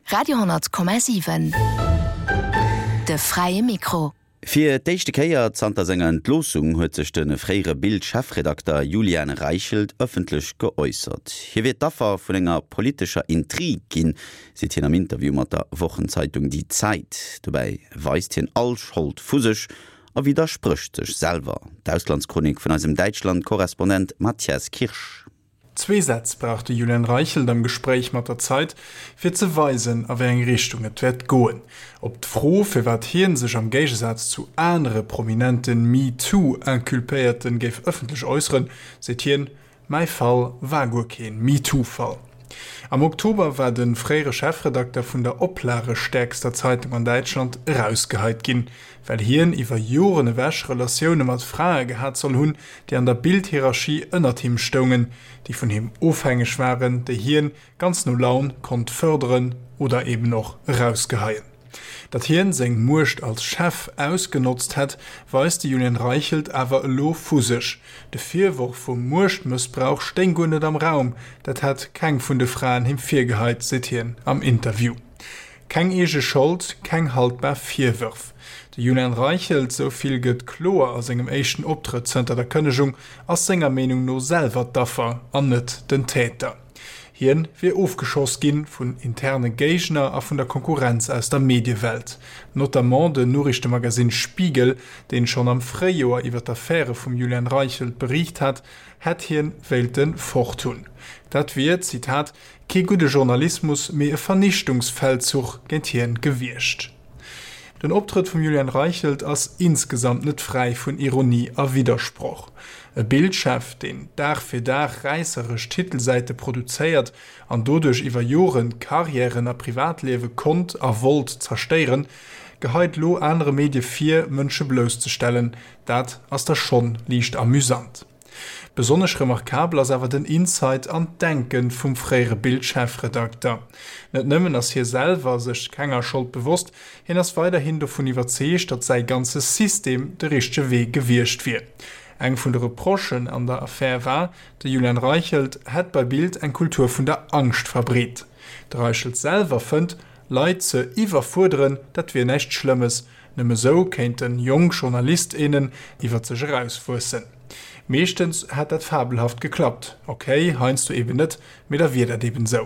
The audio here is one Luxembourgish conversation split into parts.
Radio,7 De fräie Mikro. Fir d'éischte Kéier zanter senger Entloossung huet sech de fréiere Bild-Chefredakter Julian Reichelt ëffentlech geäussert. Hie wier d'Affer vun enger politescher Intrig ginn, seet hien am Interview mat der Wochenzeitung Die Zeit. Dobäi weist hien all Schold vu sech a widdersprécht sech selwer. D'Auslandschronik vun eisem Däitschland-Korrespondent Mathias Kirsch. Zwee Sätz brauch de Julian Reichelt am Gespréich mat der Zeit, fir ze weisen, a wéi eng Richtung et wäert goen. Op d'Fro, firwat hien sech am Géigesaz zu anere prominente MeToo-Inculpéierten géif ëffentlech äusseren, seet hien, Mäi Fall war guer keen MeToo-Fall. Am Oktober war de fréiere Chefredakter vun der oplagestäerkster Zeitung an Däitschland erausgeheit ginn, well hien iwwer Joren ewech Relatioune mat Frae gehat soll hunn, déi an der Bild-Hierarchie ënnert him stoungen, déi vun him ofhängeg waren, déi hien ganz no Laun konnt fërderen oder eben och erausgeheien. Datt hien seng Muecht als Chef ausgenotzt hätt, weist de Julian Reichelt awer elo vu sech. De Virworf vum Muechtmëssbrauch stéing guer net am Raum, dat hätt keng vun de Fraen him virgeheit, seet hien am Interview. Keng eege Schold, keng haltbar Virwërf. De Julian Reichelt, sou vill gëtt kloer a sengem éischten Optrëtt zënter der Kënnegung, ass senger Meenung no selwer d'Affer an net den Täter. Hien wier ofgeschoss ginn vun interne Géigner a vun der Konkurrenz aus der Mediewelt. Notamment den Noriichtemagazin Spiegel, deen schonn am Fréijoer iwwer d'Affäre vum Julian Reichelt beriicht hat, hätt hien wéilte fort hunn. Dat wier, Zitat, Kee gudde Journalismus, mee e Vernichtungsfeldzuch géint hien gewiescht. Den Optrëtt vum Julian Reichelt ass insgesamt net fräi vun Ironie a Widdersproch. E Bild-Chef, deen Dag fir Dag räisseresch Titelsäite produzéiert an doduerch iwwer Joren Karriären a Privatliewe konnt a wollt zerstéieren, geheit lo anere Medie vir, Mënsche blousszestellen. Dat ass da schonn liicht amüsant. Besonnesch remarkabel ass awer den Insight an d'Denke vum fréiere Bild-Chefredakter. Net nëmmen ass hie selwer sech kenger Schold bewosst, hien ass weiderhin dovun iwwerzeegt, datt säi ganze System de richtege Wee gewiescht wier. Eng vun de Reprochen an der Affär war, de Julian Reichelt hätt bei Bild eng Kultur vun der Angscht verbreet. De Reichelt selwer fënnt, Leit ze iwwerfuerderen, dat wier näischt Schlëmmes, Nëmme sou kéinten jonk Journalist, innen iwwer sech erauswuessen. Meeschtens hätt dat fabelhaft geklappt. Ok, heiansdo eben net, mee da wier dat eben sou.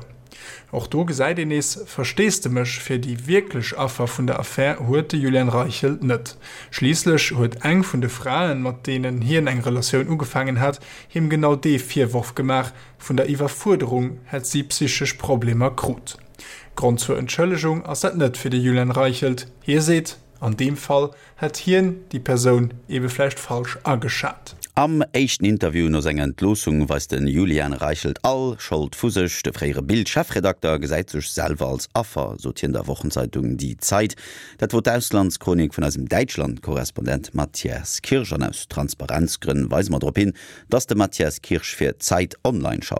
Och do gesäit een nees Versteesdemech fir déi wierklech Affer vun der Affär huet de Julian Reichelt net. Schliisslech huet eng vun de Fraen, mat deenen hien eng Relatioun ugefaangen hat, him genau dee Virworf gemaach, vun der Iwwerfuerderung hätt si psychesch Problemer krut. Grond zur Entschëllegung ass dat net fir de Julian Reichelt. Hie seet, an deem Fall hätt hien déi Persoun ebe vläicht falsch ageschat. Am éischten Interview no senger Entloossung weist de Julian Reichelt all Schold vu sech. De fréiere Bild-Chefredakter gesäit sech selwer als Affer, sot hien der Wochenzeitung Die Zeit. Dat wor d'Auslandschronik vun eisem Däitschland-Korrespondent Mathias Kirsch. An aus Transparenzgrënn weise mer drop hin, dass de Mathias Kirsch fir Zeit Online schafft.